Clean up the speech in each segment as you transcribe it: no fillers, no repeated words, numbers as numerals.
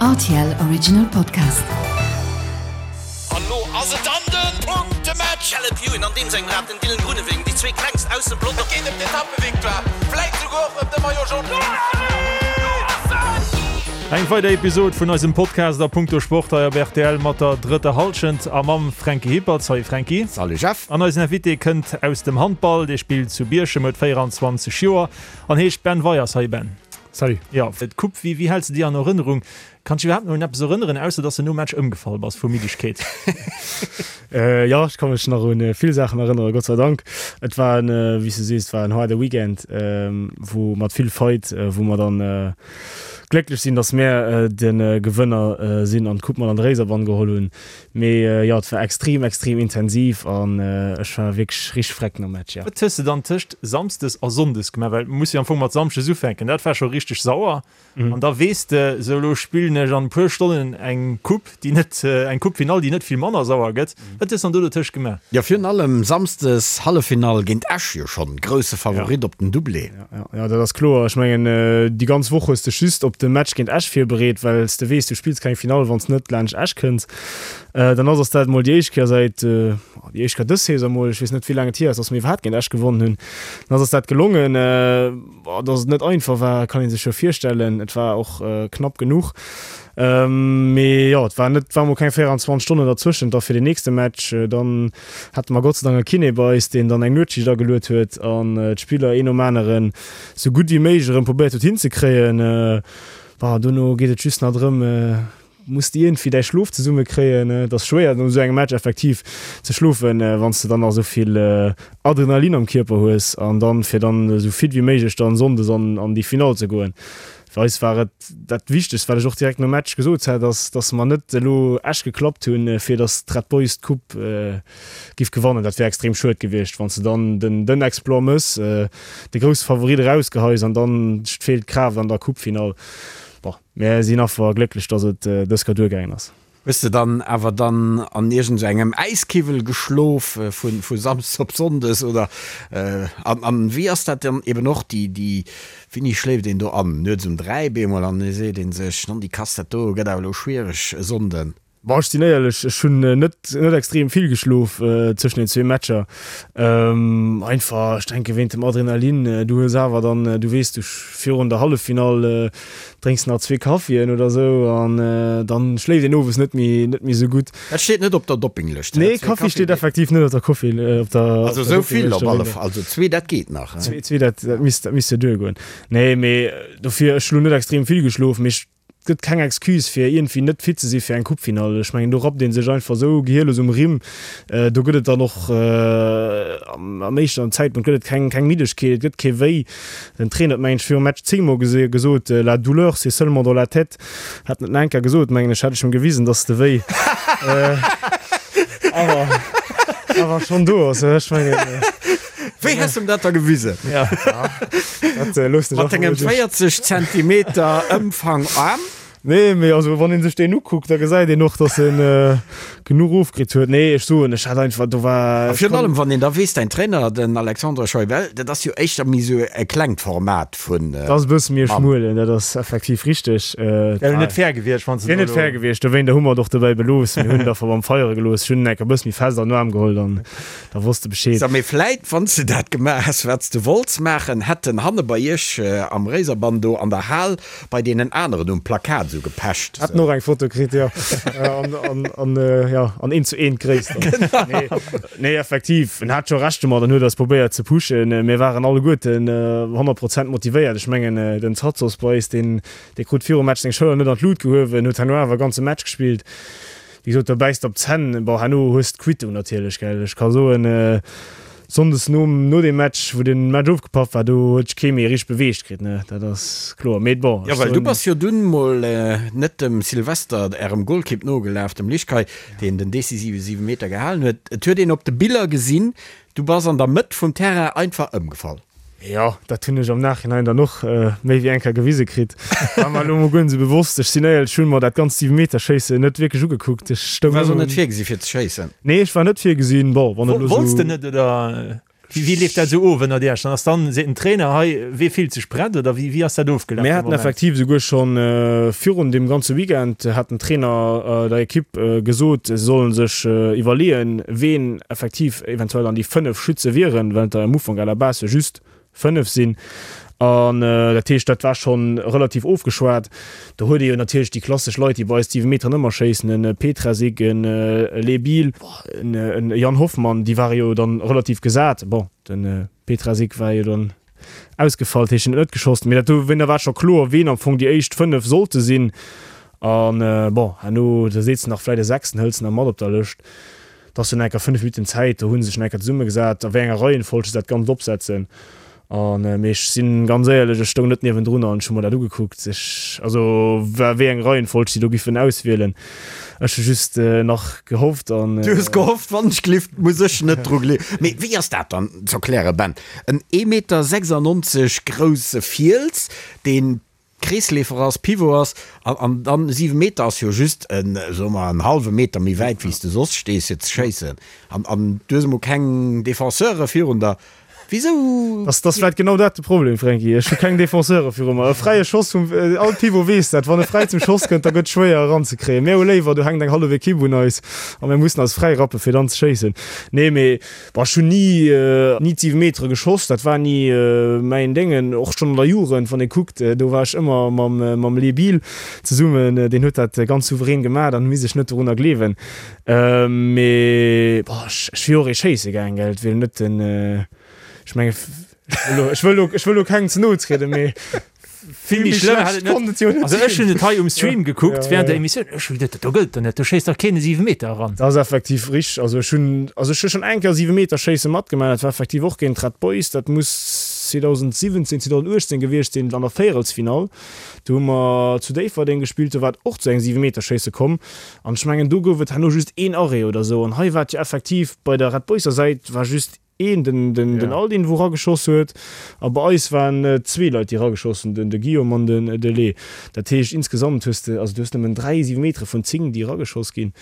Rtl Original Podcast. An lo ass et dann den Punktematch! Caleb Ewan an deem sengem Rad, den Dylan Groenewegen, déi zwee klengst aus dem Pelotong. Et geet ëm d'Etappevictoire, vläit souguer och ëm de Maillot Jaune. Eng weider Episod vun eisem Podcast a Punkto Sport hei op rtl mat der drëtter Hallschent a mam Franky Hippert. Salut Franky. Salut Jeff. An eisen Invité kënnt aus dem Handball, dee spillt zu Bierchem, huet 24 Joer an heescht Ben Weyers. Salut Ben. Salut. Jo, d'Coupe, wéi, wéi häls de déi an Erënnerung? Kanns dech iwwerhaapt nach un eppes erënneren, ausser dass de nom Match ëmgefall bass vu Middegkeet? Jo, ech ka mech nach un vill Saachen erënneren, Gott sei Dank. Et war en, wéi s de sees, et war en haarde Weekend, wou mat vill Fight, wou mer dann glécklech sinn, dass mär de Gewënner sinn an d'Coupe mat an de Réiserbann geholl hunn. Mee jo, et war extrem, extrem intensiv an ech war wierklech richteg freck nom Match, jo. Wat hues de dann tëscht Samsdes a Sonndes gemaach? Well muss jo am Fong mat Samschdes ufänken, dat war scho richteg sauer. An da weess de, sou elo spillen ech an e puer Stonnen eng Coupe, déi net, eng Coupe-Finall, déi net vill manner sauer gëtt. Wat hues de dann do dotëscht gemaach? Jo, virun allem Samsdes Halleffinall géint Esch jo schonn, grousse Favorit op den Doublé. Jo, dat ass kloer. Ech mengen, déi ganz Woch hues de just op de Match géint Esch virbereet, well s de weess, du spills keng Finall, wann s net laanscht Esch kënns. Dann ass ass dat emol déi éischt Kéier säit, déi éischt Kéier dës Saison emol, ech weess net, wéi laang et hier ass, datt mir iwwerhaapt géint Esch gewonnen hunn. Dann ass ass dat gelongen. Datt et net einfach war, kann ee sech jo virstellen. Et war och knapp genuch. Mee jo, et war net, war mol keng 24 Stonnen derzwëschent da fir den nächste Match. Dann hate mer Gott sei Dank e Kiné bei eis, deen dann eng Nuetsschicht ageluet huet an d'Spiller een nom aneren sou gutt wéi méiglech erëm probéiert huet hinzekréien. Bon, dono geet et just nach drëm, muss de iergendwéi däi Schlof zesummekréien. Et ass schwéier no esou engem Match effektiv ze schlofen, wann s de dann nach esou vill Adrenalin am Kierper hues an dann fir dann esou fit wéi méiglech dann sonndes an an déi Finall ze goen. Fir eis war et dat Wichtegst, wat ech och direkt nom Match gesot hat, ass, dass mer net elo Esch geklappt hunn, fir dass d'Red Boys d'Coupe giff gewannen. Dat wär extrem schued gewiescht, wann s de dann den den Exploit mëss, de grousse Favorit erausgeheis an dann feelt d'Kraaft an der Coupefinall. Bon, mär sinn affer glécklech, dass et dës Kéier duergaangen ass. Hues de dann awer dann an iergend sou engem Äiskiwwel geschlof vu vu Samsdes op Sonndes oder? An an wéi ass dat dann eben och déi déi wéini schléift een do an? Nuets um 3 beemol an e seet een sech, non déi Kass dat do gëtt awer elo schwiereg e Sonnden. Bon, ech sinn éierlech, ech hunn net net extrem vill geschlof tëschent den zwee Matcher. Einfach, ech denke wéint dem Adrenalin. Du hues awer dann, du weess, du virun der Halleffinall Drénks nach zwee Kaffien oder sou an dann schléift een owes net méi net méi sou gutt. Dat steet net op der Doppinglëscht. Nee, Kaffi steet effektiv net op der Koffi op der Also sou vill op alle Fall, also zwee dat geet nach. Zwee zwee dat dat misst dat misst jo duergoen. Nee, mee dofir ech hu lo net extrem vill geschlof, mee ech gëtt keng Excuse fir iergendwéi net fit ze si fir eng Coupefinall. Ech mengen do rappt ee sech einfach sou gehierlos um Rimm. Do gëtt et dann och am éischten Zäitpunkt gëtt et keng keng Middegkeet, et gëtt kee Wéi. Den Trainer huet mengen ech virum Match zéngmol gesot, La douleur c'est seulement dans la tête. Hat net nach eng Kéier gesot, mengen ech, hätt ech em gewisen, dass de Wéi awer awer schonn do ass. Ech mengen. Wéi häss em dat da gewisen? Ja, dat loossen ech Mat dengem 40 Zentimeter Ëmfang Aarm? Nee, mee also wann een sech deen ukuckt, da gesäit een och, dass en genuch ofkritt huet. Nee, ech soen, ech hat einfach, do war. A virun allem, wann een da weess, däin Trainer, den Alexandre Scheubel, dat ass jo éischter méi esou e klengt Format vun. Dat ass e bësse méi e schmuelen, dat ass effektiv richteg. Wär jo net fair gewiescht, wann s de do elo. Wier net fair gewiescht, dowéinter hu mer et och dobäi belooss. Mir hunn et einfach beim Feiere gelooss. Ech hunn en enker e bësse méi fest an den Aarm geholl, dann da wosst de Bescheed. Mee vläit, wann s de dat gemaach häss, wat s de wollts maachen, hätt en hanne bei iech am Réiserbann do an der Hal Bei deenen aneren um Plakat esou gepecht. Hätten och eng Foto kritt, jo. An, an, an, jo, an eent zu eent Gréisst. Genau. Nee, nee, effektiv, en hat scho Recht domat an huet eis probéiert ze pushen. Mir waren alleguerten 100 Prozent motivéiert. Ech mengen, den Tsatsos bei eis, deen, dee krut virum Match seng Schëller net an d'Lut gehuewen, huet herno awer e ganze Match gespillt. Wéi gesot, do bäiss de op d'Zänn. Bon, herno hues d'Quittung natierlech, gell. Ech ka soen, Sonndes nom no dem Match, wou den Match ofgepaff war, do huet sech kee méi richteg beweegt kritt, ne, dat ass kloer. Mee bon, Jo, well du bass jo dunn mol net dem Sylvester, ärem Golkipp, nogelaf, dem Lischkay, deen den decisive Siwemeter gehalen huet. Et huet een op de Biller gesinn, du bass an der Mëtt vum Terrain einfach ëmgefall. Jo, dat hunn ech am Nachhinein dann och méi wéi eng Kéier gewise kritt. War mer elo mol guer net esou bewosst. Ech sinn éierlech, ech hunn mer dat ganzt Siwemeterschéissen net wierklech ugekuckt. Ech stoung. Du waars och net virgesi fir ze schéissen? Nee, ech war net virgesinn. Bon, wann et elo esou. Wollts de net, oder? Wéi leeft dat esou of ënnert Iech? Dann ass dann, seet den Trainer, hei, wee fillt sech prett oder wéi ass dat ofgelaf Mir haten effektiv esouguer scho virun deem ganze Weekend hat den Trainer der Ekipp gesot, se solle sech iwwerleeën, ween effektiv eventuell an déi 5 Schütze wieren, well et der am Ufank à la base jo just 5 sinn. An dat heescht, dat war scho relativ ofgeschwat. Do huet ee jo natierlech déi klassesch Leit, déi bei eis d'Siwemeteren ëmmer schéissen, e Petrasik, e Lebil, e Yann Hoffmann, déi ware jo dann relativ gesat. Bon, de Petrasik war jo dann ausgefall, dat heescht, en huet net geschoss. Mee dat do war scho kloer, ween am Fong déi éischt 5 sollte sinn. An bon, herno, da seet se nach vläicht e Sechsten, hëls de nach mat op der Lëscht. Et ass jo nach enker 5 Minutten Zäit, do hu se sech nach enker zesummegesat, a wéi enger Reihenfolg se dat Ganzt opsetzen. An, mee ech sinn ganz éierlech, ech stoung net niewendrun an ech hu mer dat ugekuckt, ech, also wéi eng Reihenfolg si do giffen auswielen. Ech hu just nach gehofft an. Du hues gehofft, wann ech gleeft, muss ech net dru gleewen. Mee wéi ass dat dann z'erklären, Ben? En ee Meter 96 grousse Fiels, deen Kreesleefer ass, Pivot ass, an, an dann 7 Meter ass jo just en, soe mer, en hallwe Meter méi wäit wéi s de soss stees fir ze schéissen. An, an du hues emol keng Defenseure virun der. Wisou? Ass, ass vläit genau dat de Problem, Franky. Ech hu keng Defenseure viru mer. E fräie Schoss vum, all Pivot weess dat, wann e fräi zum Schoss kënnt, da gëtt schwéier eranzekréien. Mir hu léiwer, do hänkt eng hallef Ekipp un eis a mir mussen eis fräi rappe fir dann ze schéissen. Nee, mee Boah, ech hunn ni, ni d'siwe Metere geschoss, dat war ni mäin Déngen. Och schonn an der Jugend, wann ee kuckt, do war ech ëmmer mam, mam Lee Biel zesummen, deen huet dat ganz souverän gemaach, dann misst ech net dorunner gleewen. Mee boah, ech, ech wier och ee schéisse gaang, gell, et wier net den, ech menge, ech wëll elo, ech wëll elo kengem ze no trieden, mee Vill méi schlëmm hat et net. Also ech hunn et hei um Stream gekuckt während der Emissioun. Ech hu geduet, do gëllt der net, do schéisst dach keen e Siwemeter eran. Dat ass effektiv richteg. Also ech hunn, also ech hu schonn eng Kéier Siwemeterschéisse matgemaach. Dat war effektiv och géint d'Red Boys. Dat muss 2017, 2018 gewiescht sinn, an der Véierelsfinall. Do hu mer zu Déifferdeng gespillt, do war et och zu engem Siwemeterschéisse komm. An ech mengen, do gouf et herno just een Arrêt oder esou. An hei war et jo effektiv, bei der Red Boyser Säit war just Een, den, den, den Aldin, wou rageschoss huet. A bei eis waren et zwee Leit, déi rageschoss hunn, den, de Guillaume an den, de Lee. Dat heescht, insgesamt hues de, also du hues nëmmen dräi Siwemetere vun 10, déi rageschoss ginn.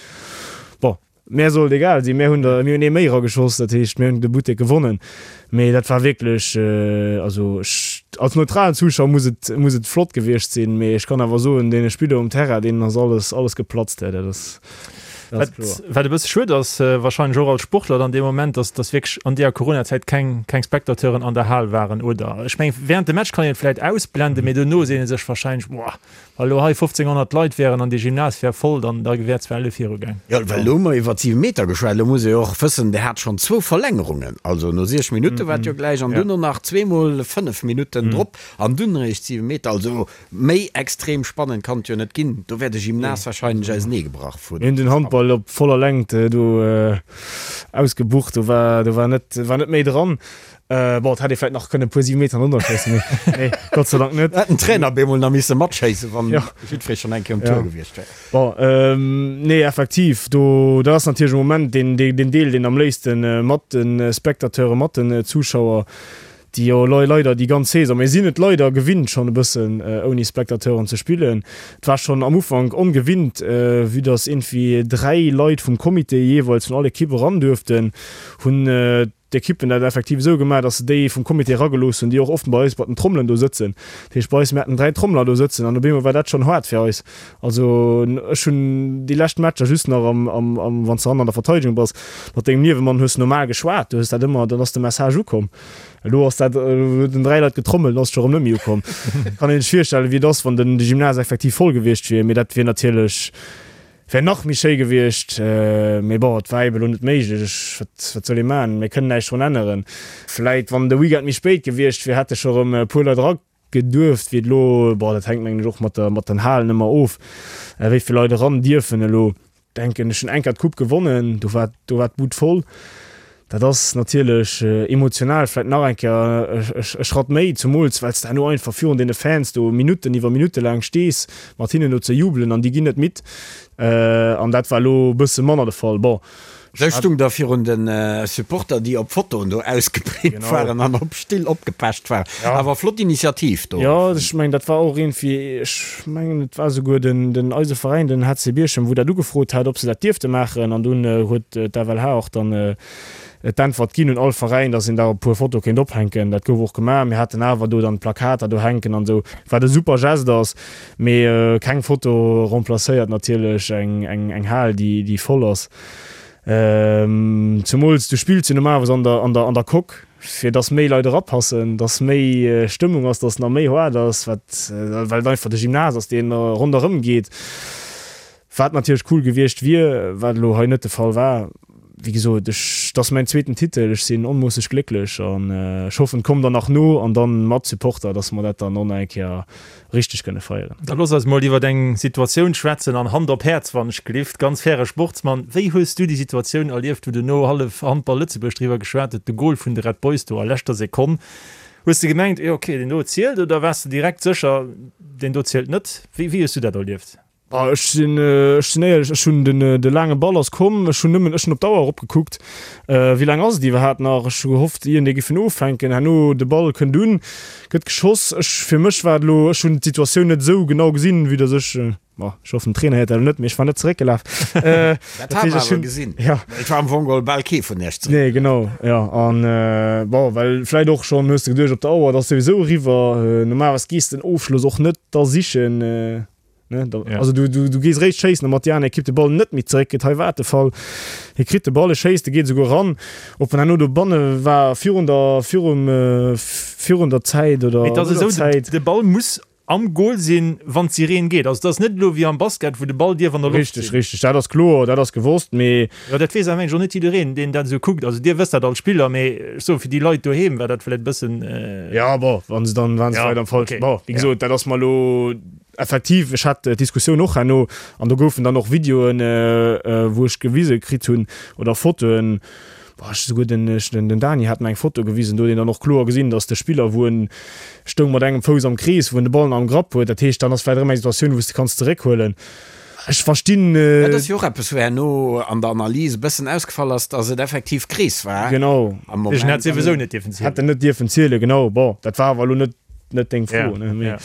Bon, mär soll et egal sinn, mär hunn der, mir hunn ee méi rageschoss, dat heescht, mir hunn de Buttek gewonnen. Mee dat war wierklech, also ech, als neutralen Zuschauer muss et, muss et flott gewiescht sinn, mee ech kann awer soen, deene Spiller um Terrain, deenen ass alles, alles geplatzt, dat ass. Wat, wat e bësse schued ass, wahrscheinlech och als Sportler dann dee Moment, dass, dass wierklech an deeër Coronazäit keng, keng Spectateuren an der Hal waren, oder? Ech mengen, während dem Match kann een et vläit ausblenden, mee dono seet ee sech wahrscheinlech, Boah, wa lo hei 1.500 Leit wären an dee Gymnase wär voll, dann, da wär zwar elo virugaang. Jo, well elo hu mer iwwer d'Siwemeter geschwat, elo muss ee och wëssen, Der hat schonn zwou Verlängerungen, also no 6 Minutte war et jo gläich an dunn och nach zweemol 5 Minutten drop an dunn eréischt d'Siwemeter. Also Méi extrem spannend kann et jo net ginn. Do wär de Gymnase wahrscheinlech auseneegebrach vun. Mir hunn den Handball op voller Längt do ausgebucht, do war do war net war net méi dran. Bon, et hätt ee vläit nach kënne e puer Siwemeter drënner schéissen, mee nee, Gott sei Dank net. Hätt den Trainer bemol nach misse matschéissen, wann jiddweree schonn eng Kéier um Tour gewiescht wär. Bon, nee, effektiv, do dat ass natierlech am Moment deen deen Deel, deen am léifste mat de Spectateuren, mat den Zuschauer déi jo leider déi ganz Saison, mir sinn et leider gewinnt schonn e bëssen ouni Spectateuren ze spillen. Et war schonn am Ufank ongewinnt, vue dass iergendwéi 3 Leit vum Comité jeeweils vun all Ekipp eran duerften, hunn d'Ekippen dat effektiv esou gemaach, dass se déi vum Comité eragelooss hunn, déi och oft bei eis bei den Trommelen do sëtzen. Dat heescht bei eis, mir haten 3 Trommler do sëtzen an op eemol war dat schonn haart fir eis. Also ech hunn déi lescht Matcher just nach am, am, am, wann s de hannen an der Verteidegung bass, mat dengem Niewemann hues de normal geschwat, du hues dat ëmmer, dann ass de Message ukomm. Elo ass dat, elo huet en 3 Leit getrommelt, ass scho rëm net méi ukomm. Kann een sech virstellen, wéi et ass, wann den de Gymnase effektiv voll gewiescht wier. Mee dat wier natierlech, wär nach méi schéi gewiescht. Mee bon, et war eben elo net méiglech. Ech, wat, wat soll ee maachen? Mir kënnen näischt drun änneren. Vläit, wann de Weekend méi spéit gewiescht wier, hätte scho rëm e puer Leit era geduerft. Wéi et elo, bon, dat hänkt mengen ech och mat der, mat den Halen ëmmer of, wéi vill Leit eran dierfen elo. Denken ech hunn eng Kéier d'Coupe gewonnen, do war do war d'Bud voll. Dat ass natierlech emotional vläit nach eng Kéier e Schratt méi, zumools well s de herno einfach virun deene Fans do Minutten iwwer Minutte laang stees, mat hinnen do ze jubelen an déi ginn net midd. An dat war elo e bësse manner de Fall. Bon, Sou stung der virun de Supporter, déi op Fotoen do ausgeprint waren an op Still opgepecht waren. Awer flott Initiativ do. Jo, ech mengen, dat war och iergendwéi, ech mengen, et war esouguer den, eise Veräin, den HC Bierchem, wou dat ugefrot hat, ob se dat dierfte maachen. An dunn huet d'FLH och dann d'Äntwert ginn un all Veräin, dass een da e puer Fotoe kéint ophänken. Dat gouf och gemaach. Mir haten awer do dann d'Plakater do hänken an esou, wat e super Geste ass. Mee keng Foto remplacéiert natierlech eng Hal, déi voll ass. Zemools du spills jo normalerweis an der, an der, an der Coque, fir dass méi Leit erapassen, dass méi Stëmmung ass, dass nach méi haart ass, wat, well et einfach de Gymnase ass, deen ronderëm geet. Wat natierlech cool gewiescht wier, wat elo hei net de Fall war. Wéi gesot, ech, et ass mäin zweeten Titel, ech sinn onmoosseg glécklech an ech hoffen, et kommt der nach no an dann mat Supporter, dass mer dat dann och nach eng Kéier richteg kënne feieren. Da looss eis mol iwwert eng Situatioun schwätzen, an Hand op Häerz, wann ech gelift, ganz faire Sportsmann, wéi hues du déi Situatioun erlieft, wou duerno hallef Handball Lëtzebuerg driwwer geschwat huet, de Gol vun de Red Boys do a leschter Sekonn? Hues de gemengt, jo ok, deen do zielt, oder waars de direkt sécher, deen do zielt net? Wéi hues du dat erlieft? Ah, ech sinn, ech sinn éierlech, ech hunn den, de laange Ball ass komm, ech hunn nëmmen, ech hunn op d'Auer eropgekuckt, wéi laang ass et iwwerhaapt nach? Ech hu gehofft, iergendee giff en ofhänken. Herno, de Ball kënnt un, gëtt geschoss. Ech, fir mech war et elo, ech hunn d'Situatioun net esou genau gesinn, vue dass ech, bon, ech hoffen, den Trainer héiert dat elo net, mee ech war net zeréckgelaf. Dat hat mer awer gesinn. Ja. Et war am Fong geholl bal kee vun iech zeréckgelaf. Nee, genau, jo. An, bon, well vläicht och schonn hues de geduecht, op der Auer, et ass souwisou eriwwer. Normalerweis gees de den Ofschloss och net da sichen. Ne, da, ja. Also du, du, du gees réischt schéissen, mat déi aner Ekipp de Ball net méi zeréck kritt. Hei war et de Fall. Hie kritt de Ball, e schéisst, e geet esouguer ran. Ob en herno dobanne war virun der, virum, äh, virun der Zäit oder Mee et ass no der esou, de, Zäit. de Ball muss am Goal sinn, wann d'Sireen geet. Also et ass net elo wéi am Basket, wou de Ball dierf an der Loft Richteg, sinn. richteg. Dat ass kloer, dat ass gewosst, mee. Jo, dat weess awer mengen ech och net jiddereen, deen dat esou kuckt. Also Dir wësst dat als Spiller, mee ech soe fir déi Leit doheem war dat vläicht e bëssen. Ja, bon, wa se dann, waren se Ja, vläicht am falschen. okay, Bon, wéi ja. gesot, dat ass mer elo. Effektiv, ech hat d'Diskussioun och herno an do goufen dann och Videoen, wou ech gewise kritt hunn oder Fotoen, boah, ech esouguer den, den Dani hat mer eng Foto gewisen, do huet een dann och kloer gesinn, datt de Spiller, wou en stoung mat engem Fouss am Krees, wou en de Ball nach am Grapp huet. Dat heescht, dann ass vläicht erëm eng Situatioun, wou s de kanns zeréckhuelen. Ech verstinn. Dat ass jo och eppes, wou herno an der Analys e bëssen ausgefall ass, datt et effektiv Krees war Genau. am Moment. Deen hätt souwisou net dierfen zielen. Hätt en net dierfen zielen, genau. Bon, dat war awer elo net, net deng Fro, Ja, ne? Mee ja.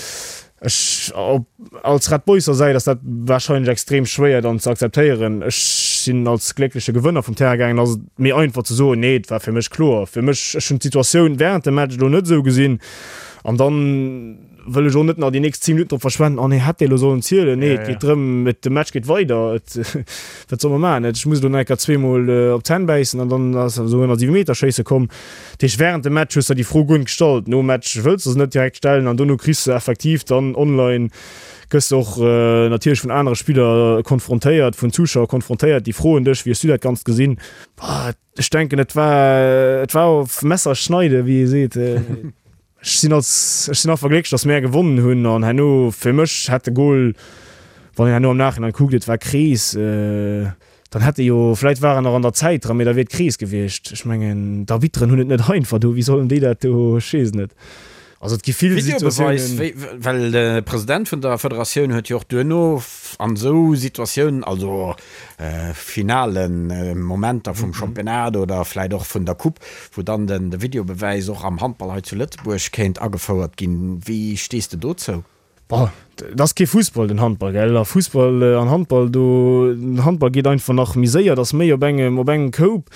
Ech, op, als Red Boyser Säit ass dat wahrscheinlech extrem schwéier dann ze akzeptéieren. Ech sinn als gléckleche Gewënner vum Terrain gaangen, ass et méi einfach ze soen, nee, et war fir mech kloer. Fir mech, ech hunn d'Situatioun während dem Match elo net esou gesinn an dann wëll ech och net nach déi nächst 10 Minutten drop verschwenden, oh nee, hätt dee elo sollen zielen. Nee, Ja, et ja. geet drëm, et, de Match geet weider, et, wat soll mer maachen? Ech muss elo nach eng Kéier zweemol op d'Zänn bäissen an dann ass esou ënner Siwemeterschéisse komm. Dat heescht, während dem Match hues de der déi Fro guer net gestallt. Nom Match wëlls de se net direkt stellen an dono kriss de effektiv dann online, gëss de och natierlech vun anere Spiller konfrontéiert, vun Zuschauer konfrontéiert, déi froen dech, wéi hues du dat Ganzt gesinn? Ech denken, et war, et war auf Messer schneide, wéi ee seet. Ech sinn als, ech sinn einfach glécklech, datt mär gewonnen hunn an herno, fir mech hätt de Gol, wann een herno am Nachhinein kuckt, et war Krees, Dann hätt e jo, vläit war en nach an der Zäit dran, mee da wier et Krees gewiescht. Ech mengen, d'Arbitteren hunn et net einfach do, wéi sollen déi dat do, ech weess et net. Also et gi vill Videobeweis, Situatiounen. wéi, well de President vun der Federatioun huet jo och duerno an esou Situatiounen, also finalen Momenter vum Championnat oder vläit och vun der Coupe, wou dann den de Videobewäis och am Handball hei zu Lëtzebuerg kéint agefouert ginn. Wéi stees de dozou? Bon, et ass kee Fussball, den Handball, gell? A Fussball an Handball, do, den Handball geet einfach nach méi séier, et ass méi op engem, op engem Koup.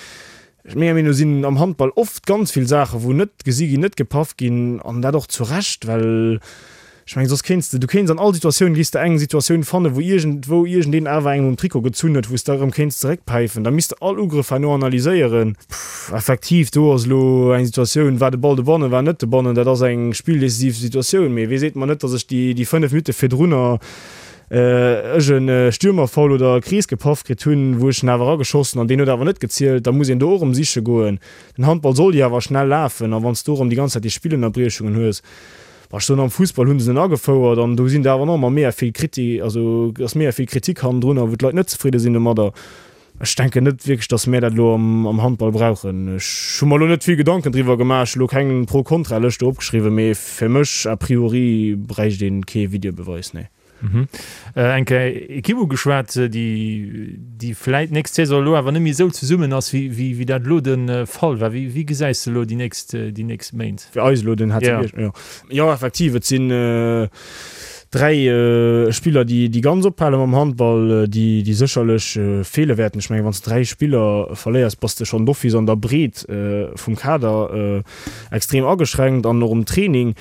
Menger Meenung no sinn am Handball oft ganz vill Saachen, wou net gesi ginn, net gepaff ginn, an dat och zu Recht, well ech mengen, soss kéints de, du kéints an all Situatioun, géifs de eng Situatioun fannen, wou iergendwou iergendeen awer engem um Trikot gezunn huet, wou s de erëm kéints zeréckpäifen. Da misst de all Ugrëff herno analyséieren. Effektiv, do ass elo eng Situatioun, war de Ball dobannen, war en net dobannen, dat ass eng spilldecisiv Situatioun. Mee wee seet mer net, datt ech déi 5 Minutte virdrunner ech e Stürmerfoul oder e Krees gepaff kritt hunn, wou ech en awer erageschossen an deen huet awer net gezielt. Da muss een do och erëm siche goen. Den Handball soll jo awer schnell lafen a wann s du erëm déi ganz Zäit déi Spillënnerbriechungen hues, bah ech soen, am Fussball hu se en agefouert an do sinn der awer nach ëmmer mega vill Kriti, also ass mega vill Kritik hannendrunner, wou d'Leit net zefridde sinn domadder. Ech denken net wierklech, datt mär dat elo am Handball brauchen. Ech hu mer elo net vill Gedanken driwwer gemaach, ech hu elo keng Pro-Kontra-Lëscht do opgeschriwwen, mee fir mech a priori bräicht een kee Videobeweis, nee. Eng Kéier Ekipp ugeschwat, déi déi vläit d'nächst Saison elo awer net méi esou zesummen ass, wéi wéi wéi dat elo de Fall war. Wéi wéi gesäis de elo déi nächst déi nächst Méint? Fir eis elo den HC Bierchem? Jo. Jo, effektiv, et sinn 3 Spiller, déi déi ganz ophale mam Handball, déi déi sécherlech feele wäerten. Ech mengen, wann s de 3 Spiller verléiers, bass de schonn d'office an der Breet vum Kader extrem ageschränkt an och um Training.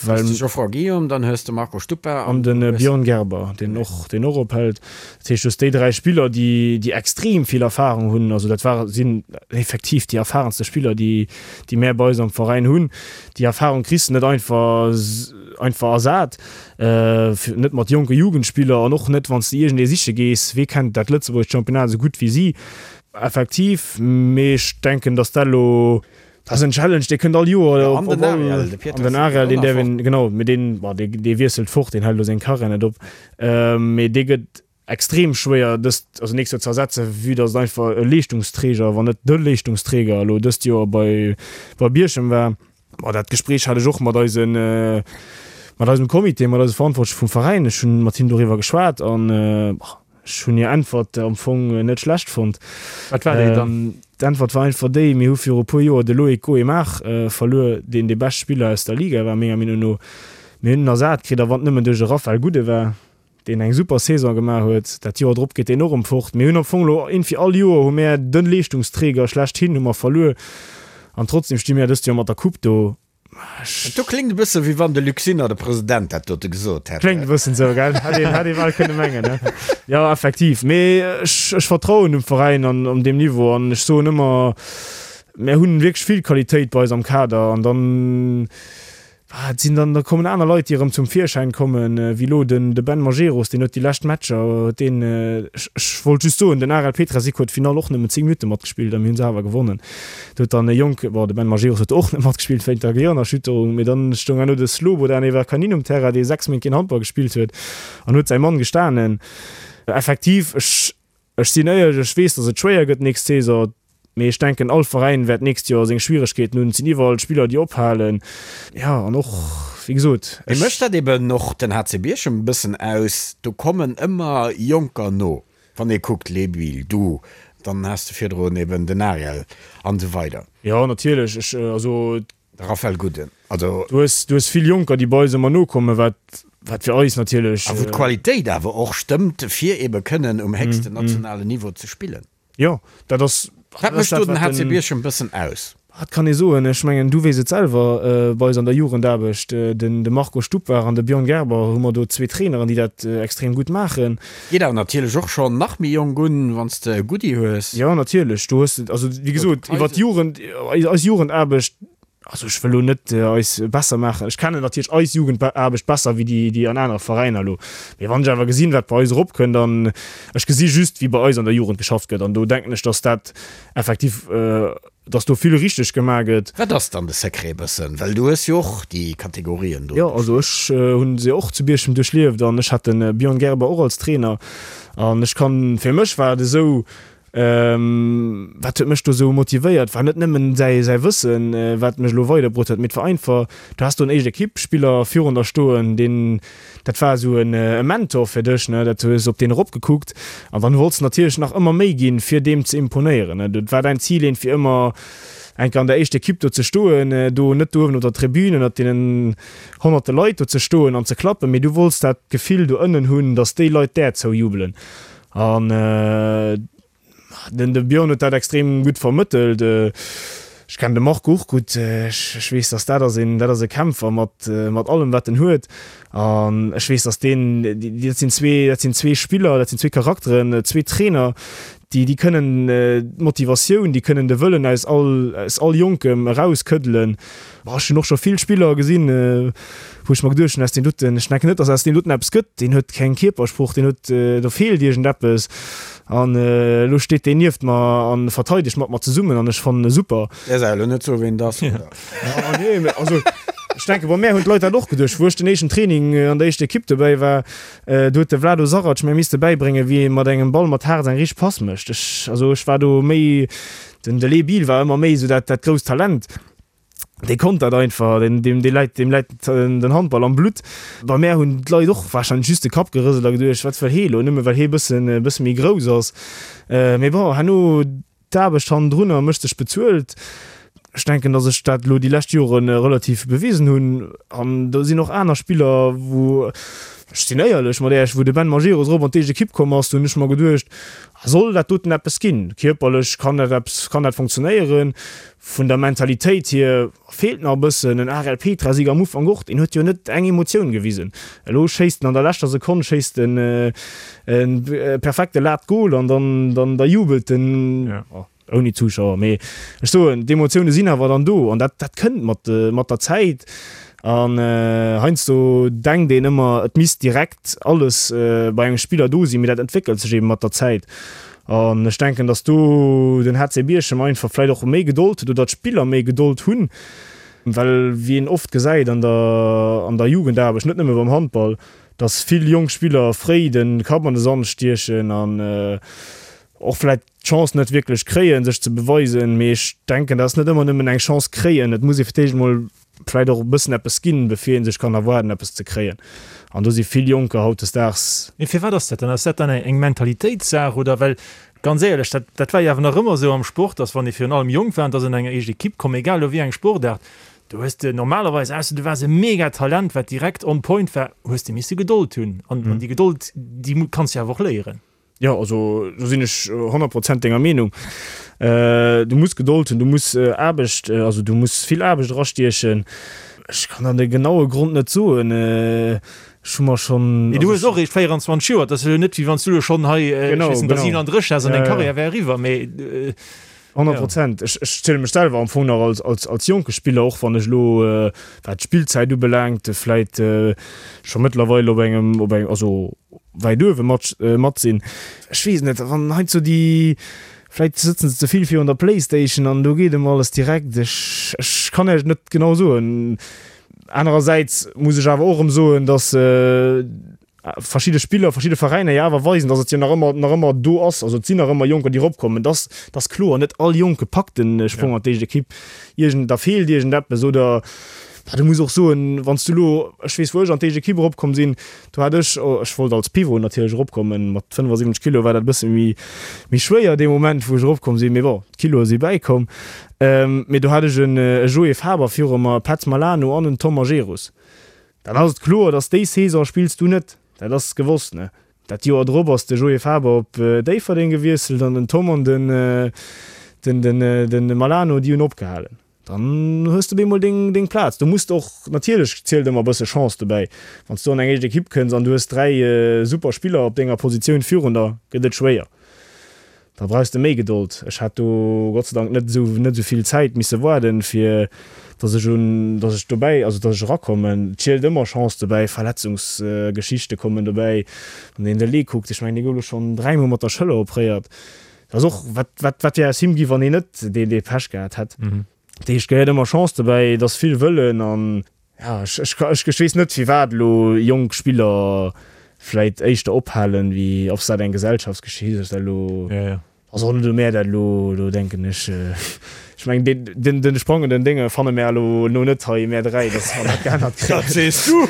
Well de Geoffroy Guillaume, dann hues de Marco Stuppa an de Björn Gerber, deen och, deen och ophält. Dat heescht, du hues déi 3 Spiller, déi, déi extrem vill Erfarung hunn. Also dat war, sinn effektiv déi erfahrenste Spiller, déi, déi mär bei eis am Veräin hunn. Déi Erfarung kriss de net einfach, einfach ersat, net mat jonke Jugendspiller an och net, wann s de iergendee siche gees, wee kennt dat lëtzebuergescht Championnat esou gutt wéi si. Effektiv, mee ech denken, datt dat elo Dat ass en Challenge, dee kënnt all Joer op. An den Ariel, de Pieters. An den Ariel, deen däerf een, genau, mee deen, bon, dee, dee wiesselt fort, deen hält elo seng Karriär net op. Mee dee gëtt extrem schwéier dëst, also nächst Joer ze ersetzen, vue datt et einfach e Leeschtungsträger, wann net de Leeschtungsträger elo dëst Joer bei, bei Bierchem war. Bon, dat Gespréich hat ech och mat eisen, mat eisem Comité, mat eise Verantwortleche vum Veräin. Ech hunn mat hinnen doriwwer geschwat an, bon, Ech hunn hir Äntwert am Fong net schlecht fonnt. Wat war déi dann? D'Äntwert war einfach déi, Mir hu viru e puer Joer de Loïc Goemar verluer, deen dee bescht Spiller aus der Liga war, menger Meenung no. Mir hunn en ersat kritt, a wann et nëmmen duerch e Raphael Gudde war, deen eng super Saison gemaach huet. Dat Joer drop geet deen och erëm fort. Mir hunn am Fong elo iergendwéi all Joer hu mär de Leeschtungsträger schlechthin hu mer verluer an trotzdem sti mär dëst Joer mat der Coupe do. Dat do kléngt e bësse wéi wann de Luc Sinner, de President, dat dote gesot hätt. Kléngt e bëssen esou, gell? Hätt een, hätt ee bal kënne mengen, ne? Jo, effektiv. Mee ech, ech vertrauen dem Veräin an op deem Niveau an ech soen ëmmer, mär hunn wierklech vill Qualitéit bei eis am Kader an dann, et sinn dann, da kommen aner Leit, déi erëm zum Virschäin kommen, wéi elo den, de Ben Majerus, deen huet déi lescht Matcher, huet deen, ech, ech wollt just soen, den Arel Petrasik huet d'Finall och nëmmen 10 Minutte matgespillt a mir hu se awer gewonnen. Do huet dann e Jonk, bon, de Ben Majerus huet och net matgespillt wéint der Gehirnerschütterung, mee dann stoung herno de Slobodan Everkanin um Terrain, dee 6 Méint keen Handball gespillt huet an huet säi Mann gestanen. Effektiv, ech, ech sinn éierlech, ech weess, datt et schwéier gëtt d'nächst Saison, mee ech denken, all Veräin wäert d'nächst Joer seng Schwieregkeeten hunn. Et sinn iwwerall Spiller, déi ophalen, jo, an och, wéi gesot, Mee ech. Mécht dat eben och den HC Bierchem e bëssen aus? Do kommen ëmmer Jonker no. Wann ee kuckt, Lebuil, du, dann has de virdrun eben den Ariel an esou weider. Jo, natierlech. Ech, also. De Raphaël Gudden, also. Du hues, du hues vill Jonker, déi bei eis ëmmer nokommen, wat, wat fir eis natierlech. A wou d'Qualitéit awer och stëmmt, fir ebe kënnen um héchsten nationalen Niveau ze spillen. Jo, dat ass. Wat mécht do den HC Bierchem e bëssen aus? Wat kann ee soen? Ech mengen, du weess et selwer, bei eis an der Jugendaarbecht, den de Marco Stupar an de Björn Gerber, hu mer do zwee Traineren, déi dat extrem gutt maachen. Geet awer natierlech och schonn nach méi jonk un, wann s de e Goodie hues. Jo, natierlech, do hues de, also wéi gesot, iwwer d'Jugend, eis Jugendaarbecht, also ech wëll elo net eis besser maachen, ech kennen natierlech eis Jugendaarbecht besser wéi déi, déi an anere Veräiner elo, mee wann ech awer gesinn, wat bei eis eropkënnt an ech gesi just, wéi bei eis an der Jugend geschafft gëtt an do denken ech, datt dat effektiv, dass do vill richteg gemaach gëtt. Wat ass dann de Secret e bëssen? Well du hues jo och déi Kategorien do. Jo, also ech hunn se och zu Bierchem duerchlieft an ech hat de Björn Gerber och als Trainer an ech kann, fir mech war et esou, wat huet mech do esou motivéiert, war net nëmmen säi säi Wëssen, wat mech elo weiderbruet huet, mee et war einfach, du has do en éischt Ekippspiller virun der stoen, deen, Dat war esou e Mentor fir dech, ne? Dat hues op deen eropgekuckt an dann wollts de natierlech nach ëmmer méi ginn, fir deem ze imponéieren, ne? Dat war däin Zil een, fir ëmmer eng Kéier an der éischter Ekipp do ze stoen, do net do uewen op der Tribün ënnert deenen honnerte Leit do ze stoen an ze klappen, mee du wollts dat Gefill do ënnen hunn, dass déi Leit där zoujubelen. An Den de Björn huet dat extrem gutt vermëttelt. Ech kennen de Marco och gutt. Ech weess, dass dat ass een, dat ass e Kämpfer mat, mat allem wat en huet. An ech weess, dass deen, dat sinn zwee, dat sinn zwee Spiller, dat sinn zwee Charakteren, zwee Trainer, déi, déi kënnen d'Motivatioun, déi kënnen de Wëllen aus all, aus all Jonkem erauskëddelen. Boah, ech hunn och scho vill Spiller gesinn, wou ech mer geduecht hunn, aus deem doten, ech denken net, dass aus deem doten eppes gëtt, deen huet keng Kierpersprooch, deen huet, do feelt iergendeppes. An elo steet deen nieft mer a verteidegt mat mer zesummen an ech fannen e super. Däers awer elo net soen, ween et ass, oder? Nee, mee also ech denken, bei mär hunn d'Leit dat och geduecht, wou ech den éischten Training an der éischter Ekipp dobäi war, do huet de Vlado Sarac mär misste bäibréngen, wéi ee mat engem Ball mat Haarz eng richteg Pass mécht. Ech, also ech war do méi, den de Lee Biel war ëmmer méi esou dat, dat grousst Talent. Dee konnt dat einfach, deen, deem, dee läit, deem läit den Handball am Blutt. Bei mär hunn d'Leit och warscheinlech just de Kapp gerëselt a geduecht, wat wëll hee elo, nëmme well hee bëssen, e bësse méi grouss ass. Mee bon, herno d'Aarbecht hannendrunner mécht sech bezuelt. Ech denken, datt ech dat elo déi lescht Jore relativ bewisen hunn. An do sinn och aner Spiller, wou, ech sinn éierlech mat Äech, wou de Ben Majerus erop an d'éischt Ekipp komm ass, do hunn ech mer geduecht, soll dat doten eppes ginn? Kierperlech kann dat eppes, kann dat funktionéieren? Vun der Mentalitéit hier feelt nach e bëssen. En Ariel Petrasik am Ufank och, deen huet jo net eng Emotioun gewisen. Elo schéisst en an der leschter Sekonn schéisst en e perfekte Late Goal an dann dann da jubelt en ouni Zuschauer. Mee ech soen, d'Emotioune sinn awer dann do an dat dat kënnt mat mat der Zäit. An heiansdo denkt een ëmmer, et misst direkt alles bei engem Spiller do sinn, mee dat entwéckelt sech eebe mat der Zäit. An ech denken, datt do den HC Bierchem einfach vläicht och méi Gedold huet oder d'Spiller méi Gedold hunn, well wéi een oft gesäit an der an der Jugendaarbecht, net nëmme beim Handball, datt vill jonk Spiller fréi de Kapp an de Sand stiechen an och vläicht d'Chance net wierklech kréien, sech ze beweisen. Mee ech denken, dat ass net ëmmer nëmmen eng Chance kréien, et muss ee fir d'éischt emol vläit och e bëssen eppes ginn, bevir ee sech kann erwaarden, eppes ze kréien. An do si vill Jonker hautdesdaags. Mee firwat ass dat dann? Ass dat dann eng Mentalitéitssaach oder? Well ganz éierlech, dat, dat war jo awer nach ëmmer esou am Sport, dass wann ee virun allem jonk war an dass an enger éischt Ekipp komm, egal elo wéi eng Sportaart, do hues de normalerweis, ausser du waars e Megatalent, wat direkt on point war, hues de misse Gedold hunn. An déi Gedold, déi kanns de awer och léieren. Jo, also do sinn ech 100 Prozent denger Meenung. Du muss Gedold hunn, du muss Aarbecht, also du muss vill Aarbecht erastiechen. Ech kann der de genaue Grond net soen. Ech hu mer schonn. Mee du hues och eréischt 24 Joer, et ass jo net wéi wann s du elo schonn hei, ech weess net, der 37 häss an deng Karriär wär eriwwer, mee. 100 Prozent. Ech ech ziele mech selwer am Fong nach als als als jonke Spiller, och wann ech elo, wat d'Spillzäit ubelaangt, vläit scho mëttlerweil op engem op engem also wäit uewe mat mat sinn. Ech weess net, wann heiansdo déi vläit sëtzen se ze vill virun der Playstation an do geet ëmmer alles direkt. Ech ech kann Iech et net genau soen. Anerersäits muss ech awer och erëm soen, datt verschidde Spiller, verschidde Veräiner jo awer weisen, datt et jo nach ëmmer, nach ëmmer do ass. Also et sinn nach ëmmer Jonker, déi eropkommen. Et ass, et ass kloer, net all Jonke packt de Sprong an d'éischt Ekipp. Iergend, da feelt iergendeppes oder, bah, du muss och soen, wann s du elo, ech weess, wou ech an d'éischt Ekipp eropkomm sinn, do hat ech, ech wollt als Pivot natierlech eropkommen, mat 75 Kilo war dat e bësse méi, méi schwéier dee Moment, wou ech eropkomm sinn, mee bon, d'Kiloe si bäikomm. Mee do hat ech en Joé Faber viru mer, e Petz Malano an en Tom Majerus. Dann ass et kloer, dass déi Saison spills du net, dat ass gewosst, ne? Dat Joer drop ass de Joé Faber op Déifferdeng gewiesselt an den Tom an den den den Malano, déi hunn opgehalen. Dann hues de bemol deng deng Plaz. Du muss och, natierlech zielt ëmmer e bësse Chance dobäi. Wann s du an eng éischt Ekipp kënns an du hues 3 super Spiller op denger Positioun virun der, gëtt et schwéier. Da brauchs de méi Gedold. Ech hat do Gott sei Dank net esou net esou vill Zäit misse waarden, fir dass ech un dass ech dobäi also dass ech erakommen. Et zielt ëmmer Chance dobäi, Verletzungsgeschichte kommen dobäi. Wann een de Lee kuckt, ech mengen dee gouf elo schonn dräimol mat der Schëller opréiert. Dat ass och wat wat wat wär aus him gi wann hien net dee dee Pech gehat hätt. Dat heescht, gehéiert ëmmer Chance dobäi, et ass vill Wëllen an Jo, ech, ech, ech weess net firwat elo jonk Spiller vläit éischter ophalen, wéi ob s dat eng Gesellschaftsgeschicht ass, dat elo ass och net elo mär dat elo, elo denken ech, ech mengen deen, den, den sprangenden Dénge fanne mär elo elo net hei, mär 3, datt mer dat geännert kréien. Dat sees du!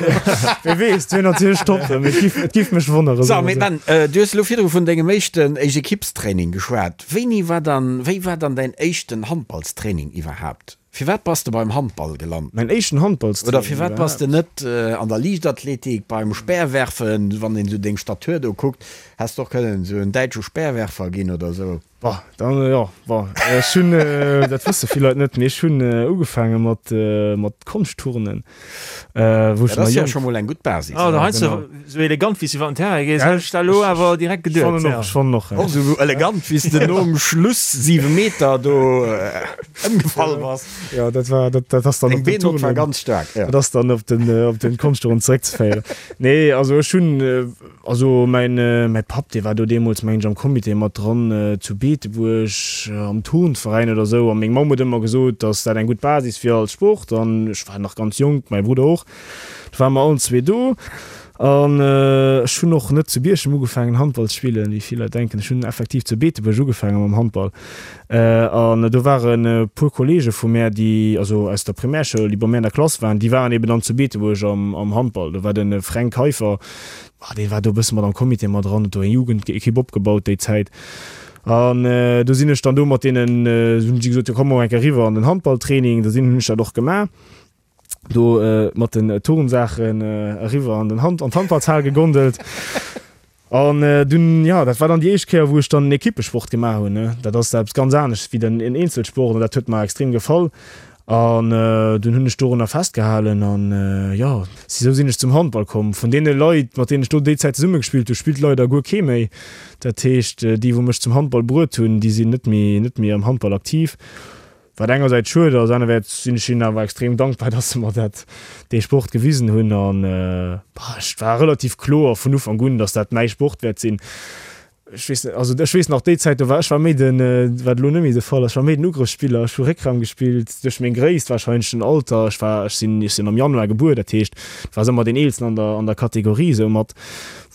Wie weess, et wier natierlech top, mee et giff, et giff mech wonneren, So, mee Ben, du hues elo virdru vun dengem éischten Éischt-Ekippstraining geschwat. Wéini war dann, wéi war dann däin éischten Handballstraining iwwerhaapt? Firwat bass de beim Handball gelant? Mäin éischten Handballstraining Oder firwat bass de net an der Liichtathletik, beim Speerwerfen, wann een esou deng Statur do kuckt, häss de och kënnen esou en däitsche Speerwerfer ginn oder esou. Bah, dann, jo, bon, ech hunn, dat wësse vill Leit net, mee ech hunn ugefaange mat, mat Konschtturnen, wou ech nach jonk. Dat ass jo scho mol eng gutt Basis. Oh, da heiansdo esou elegant, wéi s du iwwer den Terrain gees, hätt ech dat elo awer direkt geduet. Ech fannen och, ech fannen och. Och esou elegant, wéi s de nom Schluss 7 Meter do. Ëmgefall bass. Jo, dat war, dat, dat ass dann op den Turnen. war ganz staark, ja. Dat ass dann op den, op den Konschtturnen zeréckzeféieren. Nee, also ech hunn, also mäin, mäi Papp, dee war do deemools, mengen ech, am Comité mat dran zu Beetebuerg am Turnveräin oder esou. A meng Mamm huet ëmmer gesot, datt dat eng gutt Basis wier als Sport. An ech war nach ganz jonk, mäi Brudder och. Do ware mer allen zwee do. An ech hunn och net zu Bierchem ugefaangen Handball ze spillen, wéi vill Leit denken. Ech hunn effektiv zu Beetebuerg ugefaange mam Handball. An do waren e puer Kolleege vu mär, déi, also aus der Primärschoul, déi bei mär an der Klass waren, déi waren eben dann zu Beetebuerg am Handball. Do war de Fränk Keiffer, dee war do e bësse mat am Comité mat dran, huet do eng Jugendekipp opgebaut déi Zäit. An do sinn ech dann do mat deenen, hunn si gesot, jo komm mol eng Kéier eriwwer an den Handballtraining. Da sinn, hunn ech dat och gemaach. do mat den Turnsaachen eriwwer an den Hand an d'Handballshal gegondelt. An dunn, jo, dat war dann déi éischt Kéier, wou ech dann en Ekippesport gemaach hunn, ne. Dat ass eppes ganz anescht wéi den en Eenzelsport an dat huet mer extrem gefall. An dunn hunn ech dorunner festgehalen an, jo, sou sinn ech zum Handball komm. Vun deene Leit, mat deenen ech do déi Zäit zesumme gespillt hunn, spillt leider guer kee méi. Dat heescht, déi, wou mech zum Handball bruet hunn, déi sinn net méi, net méi am Handball aktiv. Wat engersäits schued ass, anerwäerts sinn ech hinnen awer extrem dankbar, dass se mer dat, dee Sport gewisen hunn. An et war relativ kloer vun Ufank un, dass dat mäi Sport wäert sinn. Ech weess net, also ech weess nach déi Zäit, do war ech war méi den, wat elo net méi de Fall ass, ech war méi den Ugrëffsspiller. Ech hu Réckraum gespillt, duerch meng Gréisst warscheinlech, den Alter. Ech war, ech sinn, ech sinn am Januar gebuer, dat heescht, et war ëmmer deen Eelsten an der, an der Kategorie soumat,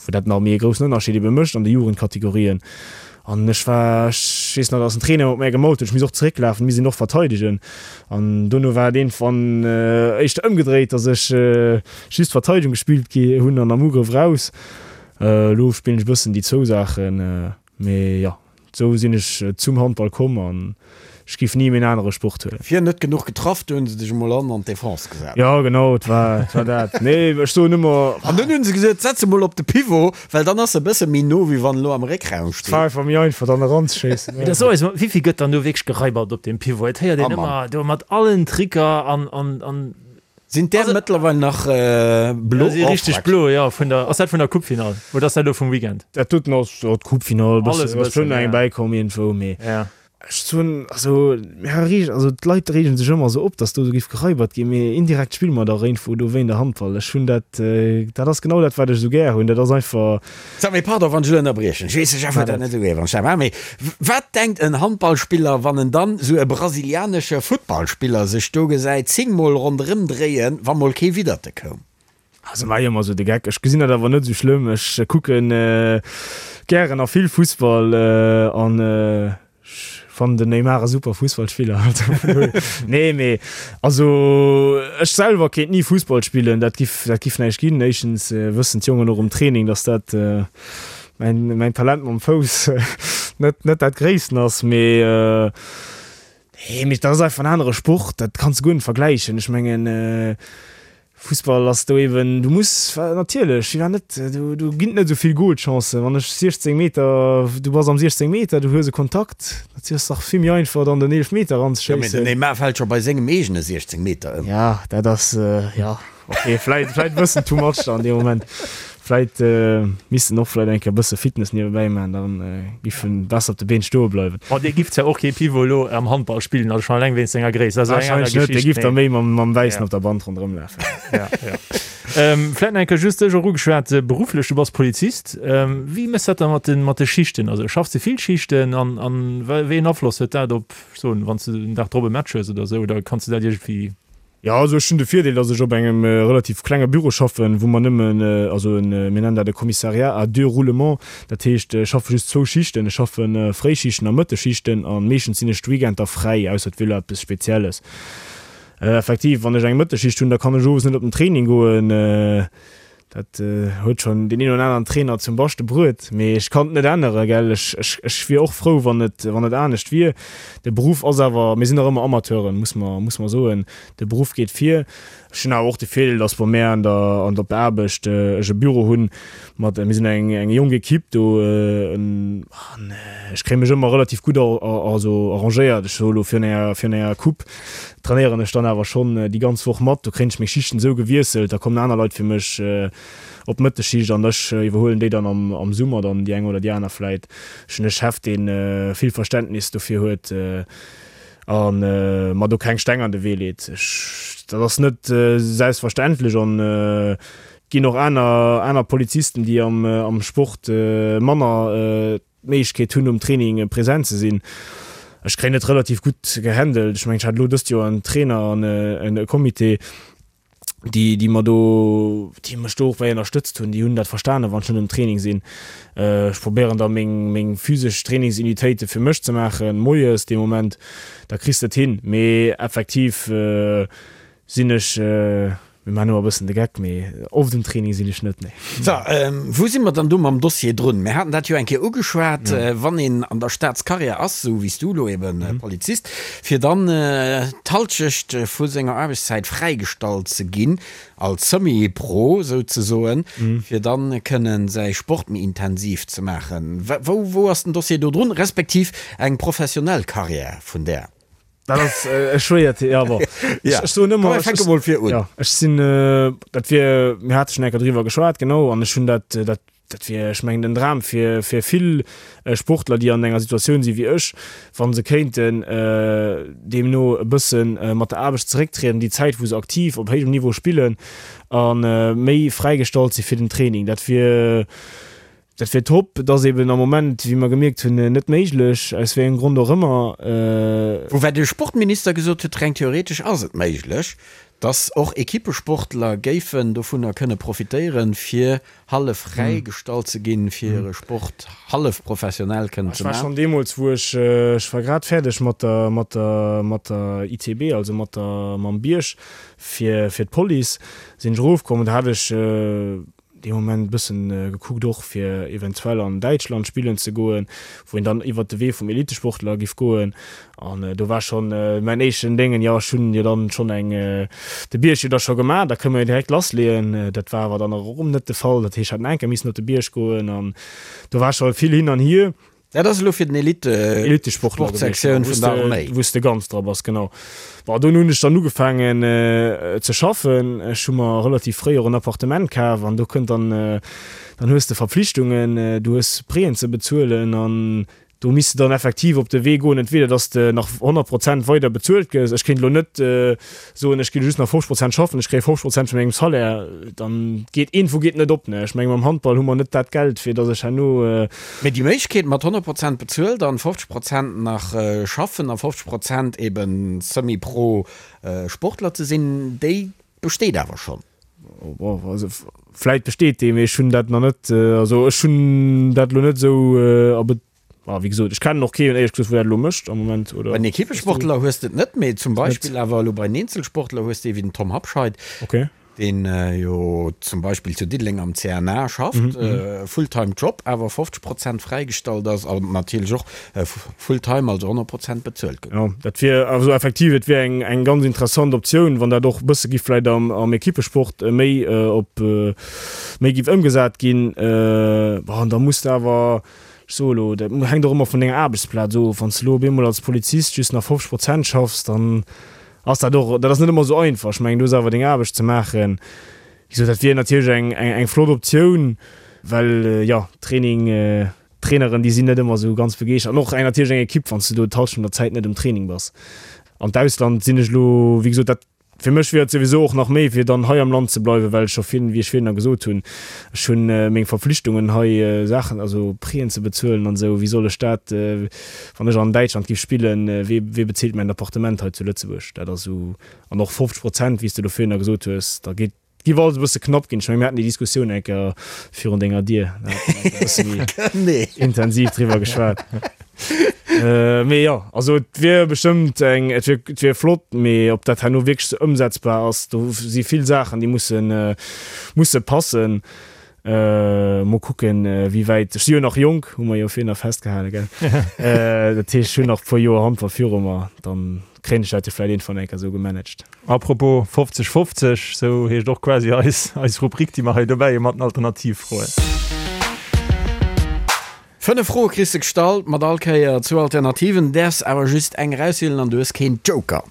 wou dat nach méi e groussen Ënnerscheed ebe mécht an de Jugendkategorien. An ech war, ech weess nach, dass den Trainer mat mär gemault huet, ech misst och zerécklafen, misst een och verteidegen. An dono war et iergendwann éischter ëmgedréit, dass ech just Verteidegung gespillt gi hunn an am Ugrëff raus. Elo spillen ech e bëssen déi zwou Saachen, mee jo, esou sinn ech zum Handball komm an ech giff ni méi en anere Sport huelen. Fir net genuch getraff, du hunn se dech emol an an d'Defense gesat. Jo genau, et war, et war dat. Nee, ech soen ëmmer. An dunn hunn se gesot, setz e mol op de Pivot, well dann ass e bësse méi no, wéi wann en elo am Réckraum steet. Et war einfach méi einfach dann eranzeschéissen. Mee da so eis mol, wéivill gëtt dann do wierklech geraibert op deem Pivot? Et héiert een ëmmer do mat allen Tricker an, an, an. Sinn där mëttlerweil nach blo? Si richteg blo, jo. Vun der, ass dat vun der Coupefinall oder ass dat elo vum Weekend? Dat doten ass, jo, d'Coupefinall, e bëssen, ass schonn eng bäikomm iergendwou, mee. Ech soen, also, mir reegen, also d'Leit reegen sech ëmmer esou op, datt do esou géif geraibert ginn, mee indirekt spille mer dach iergendwou do wéi in der Handball. Ech hunn dat, dat ass genau dat, wat ech esou gär hunn. Dat ass einfach. Sag, mee pardon, wann ech elo ënnerbriechen, ech weess, de Jeff huet dat net esou gär, wann ech dat maachen, mee wat denkt en Handballspiller, wann en dann esou e brasilianesche Futtballspiller sech do gesäit zéngmol ronderëm dréien, wa mol kee Widderte koum? Also maach ech ëmmer esou de Geck. Ech gesinn dat awer net esou schlëmm. Ech kucken gären a vill Fussball an ech fannen den Neymar e super Fussballspiller. Nee mee also ech selwer kéint ni Fussball spillen, dat giff dat giff näischt ginn. Éischtens wëssen d'Jongen och um Training, datt dat mäin mäin Talent mam Fouss net net dat gréissten ass. Mee nee mee dat ass einfach en anere Sport, dat kanns de guer net vergläichen. Ech mengen Fussball ass do eben, du muss natierlech, jo net, do do ginn et net esou vill Golchancen. Wann ech 16 Meter, du bass am 16 Meter, du hues e Kontakt, dat ass dach vill méi einfach dann den Eelefmeter Jo, mee den eranzeschéissen. Neymar fält scho bei sengem eegene 16 Meter ëm. Ja, dat ass, jo, ok, vläit vläit e bëssen too much dann an deem Moment. Vläit misst en och vläit eng Kéier e bësse Fitness niewebäi maachen, da giff en besser op de Been stoe bleiwen. Bon, dee giff zwar och kee Pivot elo am Handball spillen, also schonn eleng wéinst senger Gréisst, dat ass eng aner Warscheinlech net, dee Geschicht, giff da mee méi mam mam Wäissen op der Band ronderëm lafen. Ja, ja. Vläit nach eng Kéier just dech och ugeschwat, berufflech, du bass Polizist, wéi méchs dat da mat de mat de Schichten? Also schaffs de vill Schichten an an wéi een Afloss huet dat op, ech soen, wann s de den Dag drop e Match hues oder esou, oder kanns de dat iergendwéi Jo, also ech hunn de Virdeel, datt ech op engem relativ klenge Büro schaffen, wou mer nëmmen, also en, mir nennen dat e Commissariat à deux roulements, dat heescht, ech schaffe just zwou Schichten, ech schaffe Fréischichten a Mëttesschichten a meeschtens sinn ech d'Weekender fräi, ausser et wier elo eppes Spezielles. Effektiv, wann ech eng Mëttesschicht hunn, da kann ech owes net op den Training goen. Dat huet schonn deen een oder aneren Trainer zum Baschte bruet, mee ech kann et net änneren, gell. Ech, ech, ech wier och frou, wann et, wann et anescht wier. De Beruff ass awer, mir sinn nach ëmmer Amateuren, muss mer, muss mer soen. De Beruff geet vir. Ech hunn awer och de Virdeel, datt bei mär an der, an op der Aarbecht ech e Büro hunn mat, mir sinn eng, eng jonk Equipe do, an ech kréie mech ëmmer relativ gutt also arrangéiert. Ech soe lo virun enger, virun enger Coupe trainéieren ech dann awer schonn déi ganz Woch mat. Do kréien ech meng Schichten esou gewiesselt, da kommen aner Leit fir mech op d'Mëttesschicht an ech iwwerhuelen déi dann am Summer dann déi eng oder déi aner vläit. Ech hunn e Chef, dee vill Verständnis dofir huet a mer do keng Steng an de Wee leet. Ech, dat ass net selbstverständlech an et ginn och aner aner Polizisten, déi am Sport manner d'Méiglechkeet hunn um Training present ze sinn. Ech kréien et relativ gutt gehandelt. Ech mengen, ech hat elo dëst Joer en Trainer an e Comité. Déi, déi mer do, déi mech do och bäi ënnerstëtzt hunn, déi hunn dat verstanen, wann ech net um Training sinn. Ech probéieren da meng, meng physesch Trainingsunitéite fir mech ze maachen, moies dee Moment, da kriss de et hin. Mee effektiv sinn ech, mir maachen ëmmer e bëssen de Geck, mee oft um Training sinn ech net, nee. So, wou si mer dann do mam Dossier drun? Mir haten dat jo eng Kéier ugeschwat, wann een an der Staatscarrière ass, esou wéi s du elo eben Polizist, fir dann d'Halschecht vu senger Aarbechtszäit fräigestallt ze ginn, als Semi-Pro souzesoen, fir dann kënnen säi Sport méi intensiv ze maachen. Wou, wou ass den Dossier do drun, respektiv eng professionell Carrière vun där? Dat ass e schwéiert, ja bon. Ja, Ech soen ëmmer, komm, ech fänke mol vir un. Ja, ech sinn, dat wier, mir hate schonn eng Kéier driwwer geschwat, genau, an ech hunn dat, dat Dat wier, ech mengen, den Dram fir fir vill Sportler, déi an enger Situatioun si wéi ech, wa se kéinten deemno e bësse mat der Aarbecht zerécktrieden, déi Zäit, wou se aktiv op héijem Niveau spillen a méi fräigestallt si fir den Training. Dat wier, dat wier top. Et ass eben am Moment, wéi mer gemierkt hunn, net méiglech, aus wéi engem Grond och ëmmer. Woubäi de Sportminister gesot huet, reng theoretesch ass et méiglech, datt och Equippesportler géifen dovunner kënne profitéieren, fir hallef fräi gestallt ze ginn, fir hire Sport hallef professionell kënnen ze Ech war maachen. schonn deemools, wou ech, ech war grad fäerdeg mat der, mat der, mat der ITB, also mat der, mam Bierg fir, fir d'Police, sinn ech erofkomm an do hat ech dee Moment e bëssen gekuckt och fir eventuell an Däitschland spillen ze goen, wou een dann iwwert de Wee vum Elitesportler giff goen. An do war schonn mäin éischten Déngen, jo ech hunn jo dann schonn eng, de Bierg jo da scho gemaach, da kënne mer jo direkt lassleeën. Dat war awer dann och erëm net de Fall. Dat heescht, ech hätt nach eng Kéier missen op de Bierg goen an do war scho vill hin an hier. Dat ass elo fir den Elite-Sportler gewiescht, Elite-Sportsektioun vun der Arméi. Wou s de ganz dra bass, genau. Bon, dunn hunn ech dann ugefaangen ze schaffen. Ech hu mer relativ fréi och en Appartement kaf an do kënnt dann, dann hues de Verpflichtungen, du hues Prêten ze bezuelen an Do misst de dann effektiv op de Wee goen, entweder dass de nach 100 Prozent weider bezuelt gëss, ech kéint elo net soen, ech ginn just nach 50 Prozent schaffen, ech kréie 50 Prozent vun mengem Salaire, dann geet iergendwou geet net op. Ne, ech menge mam Handball hu mer net dat Geld, fir dass ech herno. Mee déi Méiglechkeet mat 100 Prozent bezuelt an 50 Prozent nach schaffen a 50 Prozent eben semi-pro Sportler ze sinn, déi besteet awer schonn. Bon, also vläit besteet dee, mee ech hunn dat nach net, also ech hunn dat elo net esou a Be-, ah, wéi gesot, ech kennen och keen, éierlech gesot, wou dat elo mécht am Moment, oder? Bei den Equippesportler hues de et net, mee zum Beispill awer elo bei den Eenzelsportler hues de ee wéi den Tom Habscheid, Okay. deen jo zum Beispill zu Diddeleng am CNA schafft, Fulltime Job, awer 50 Prozent fräigestallt ass an natierlech och Fulltime, also 100 Prozent bezuelt gëtt. Jo, dat wier also effektiv, et wier eng, eng ganz interessant Optioun, wann dat och e bësse giff vläicht am, am Equipesport méi op, méi giff ëmgesat ginn. Bon, da muss de awer, ech soe elo, dat hänkt och ëmmer vun denger Aarbechtsplaz of, wann s de elo op eemol als Polizist just nach 50 Prozent schaffs, dann ass dat och, dat ass net ëmmer esou einfach. Ech mengen, du hues awer deng Aarbecht ze maachen. Wéi gesot, dat wier natierlech eng, eng, eng flott Optioun, well jo, Training, D'Traineren, déi sinn net ëmmer esou ganz begeeschtert. An och eng natierlech eng Ekipp, wann s du do d'Hallschent vun der Zäit net um Training bass. An d'Ausland sinn ech elo, wéi gesot, dat, fir mech wier et souwisou och nach méi, fir dann hei am Land ze bleiwen, well ech scho virun, wéi ech virun gesot hunn, ech hunn meng Verpflichtungen hei, Saachen, also Prêten ze bezuelen an esou. Wéi soll ech dat, wann ech an Däitschland géif spillen, wee, wee bezilt mäin Appartement hei zu Lëtzebuerg? Dat ass esou. An och 50 Prozent, wéi s de do virun gesot hues, da geet, Giff alles e bësse knapp ginn. Ech mengen, mir haten déi Diskussioun eng Kéier virun denger Dier. Da hat mer e bësse méi intensiv driwwer geschwat. Mee jo, also et wier bestëmmt eng, et wier, et wier flott, mee ob dat herno wierklech sou ëmsetzbar ass, do si vill Saachen, déi mussen, musse passen. Mol kucken, wéi wäit, ech si jo nach jonk, hu mer jo virhin nach festgehale, gell? Dat heescht, ech hunn nach e puer Joer Handball viru mer, dann kréien ech dat jo vläicht iergendwann eng Kéier esou gemanagt. Apropos 50, 50, esou heescht och quasi eis, eis Rubrik, déi mer hei dobäi hu mat den Alternativfroen. Fënnef Froe kriss de gestallt, mat all Kéier zwou Alternativen, däerfs awer just eng erauswielen an du hues keen Joker.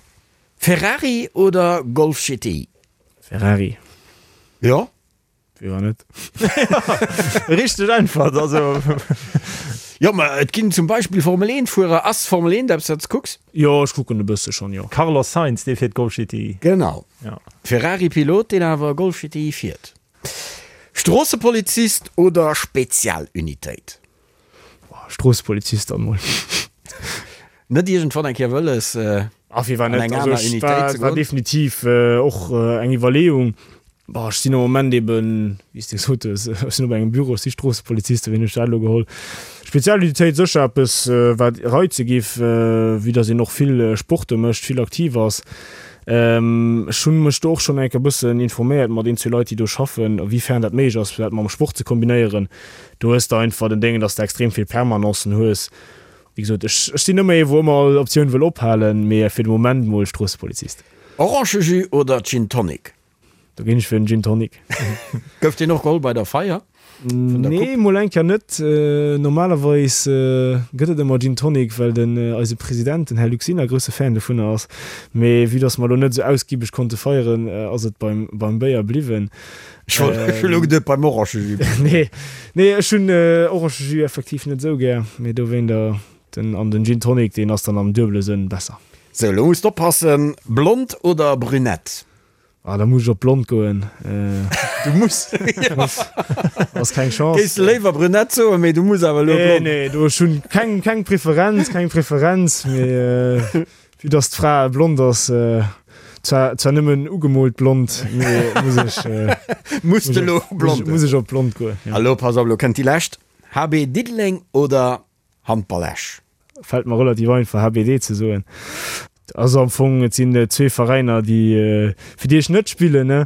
Ferrari oder Golf GTI? Ferrari. Jo? Wéi war net? Richteg Äntwert, also. Jo, ma et ginn zum Beispill Formel 1 Fuerer. Ass Formel 1 eppes wat s kucks? Jo, ech kucken e bësse schonn, jo. Carlos Sainz, dee fiert Golf GTI. Genau. Ja. Ferrari Pilot, deen awer Golf GTI fiert. Stroossepolizist oder Spezialunitéit? Boah, Stroossepolizist dann mol. Net iergendwann eng Kéier wëlles? Ah, firwat net? An eng aner Unitéit ze goen? War definitiv och eng Iwwerleeung. Bon, ech sinn am Moment eben, wéi s de gesot hues, ech sinn op engem Büro, ech si Stroossepolizist, wéi hunn ech dat elo geholl? Spezialunitéit sécher eppes, wat reize giff, vue dass een och vill Sporte mécht, vill aktiv ass. Ech hunn mech do och schonn eng Kéier e bëssen informéiert mat een, zwee Leit, déi do schaffen, a wéi fern dat méiglech ass, fir dat mam Sport ze kombinéieren. Do hues de einfach den Déngen, dass de extrem vill Permanencen hues. Wéi gesot, ech sinn ëmmer ee wou ëmmer all Optioun wëll ophalen, mee fir de Moment mol Stroossepolizist. Orangejus oder Gin Tonic? Do ginn ech fir den Gin Tonic. Gouf deen och geholl bei der Feier vun der Coupe? Nee, mol eng Kéier net. Normalerweis gëtt et ëmmer Gin Tonic, well den eise President, den Här Luc Sinner, grousse Fan dovunner ass. Mee vue dass mer elo net esou ausgibeg konnte feieren, ass et beim beim Béier bliwwen. Ech wollt, ech hunn elo geduet beim Orangejus. Nee, nee, ech hunn Orangejus effektiv net esou gär, mee dowéinter den an den Gin Tonic, deen ass dann am duebele Sënn besser. Sou, elo muss de oppassen, Blond oder Brünett? Ah, da muss ech op blond goen. Du muss. Ass keng Chance. Géifs de léiwer brünett soen, mee du muss awer elo blond. Nee, nee, do ech hunn keng, keng Preferenz, keng Preferenz, mee vue dass d'Fra blond ass, zwar, zwar nëmmen ugemoolt blond, mee muss ech, Muss de elo blond. Muss ech op blond goen, jo. A lo, pass op, lo kënnt déi lescht, HB Diddeleng oder Handball Esch? Fällt mer relativ einfach HBD ze soen. Also am Fong, et sinn zwee Veräiner déi fir déi ech net spillen, ne.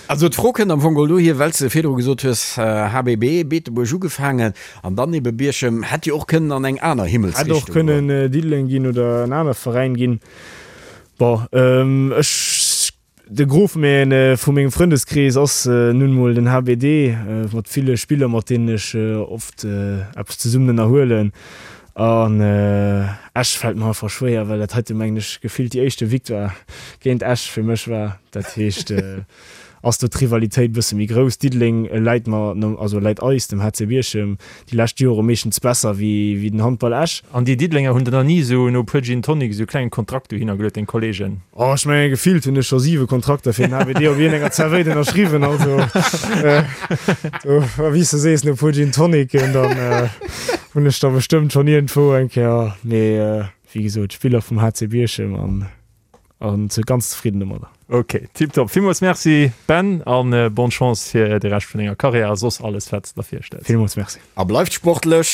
Also d'Fro kënnt am Fong geholl dohier, well s de virdru gesot hues, HBB, Beetebuerg ugefaangen an dann ebe Bierchem, hätt jo och kënnen an eng aner Himmelsrichtung goen. Hätt och kënnen Diddeleng ginn oder en anere Veräin ginn. Bon, ech De Gros vu mengem Frëndeskrees ass nun mol den HBD, mat ville Spiller mat deenen ech oft eppes zesummen ënnerhuelen. An Esch fält mer einfach schwéier, well dat heite mengen ech gefillt déi éischte Victoire géint Esch fir mech war. Dat heescht ass do d'Rivalitéit bësse méi grouss. Diddeleng läit mer, also läit eis, dem HC Bierchem, déi lescht Jore meeschtens besser wéi den Handball Esch. An déi Diddelenger hunn der nach ni esou no e puer Gin Tonic esou e klengen Kontrakt dohinner geluet, deng Kollegen? Oh, ech mengen gefillt hunn ech scho 7 Kontrakter fir den HBD op iergendenger Zerwéit ënnerschriwwen, also do, wéi s de sees, no e puer Gin Tonicen, dann hunn ech der bestëmmt schonn iergendwou eng Kéier, mee wéi gesot, Spiller vum HC Bierchem an. An ze ganz zefridden domadder. Ok, tiptop. Villmools Merci Ben an bonne Chance fir de Rescht vun denger Karriär a soss alles wat s de der virstells. Villmools Merci. A bleift sportlech!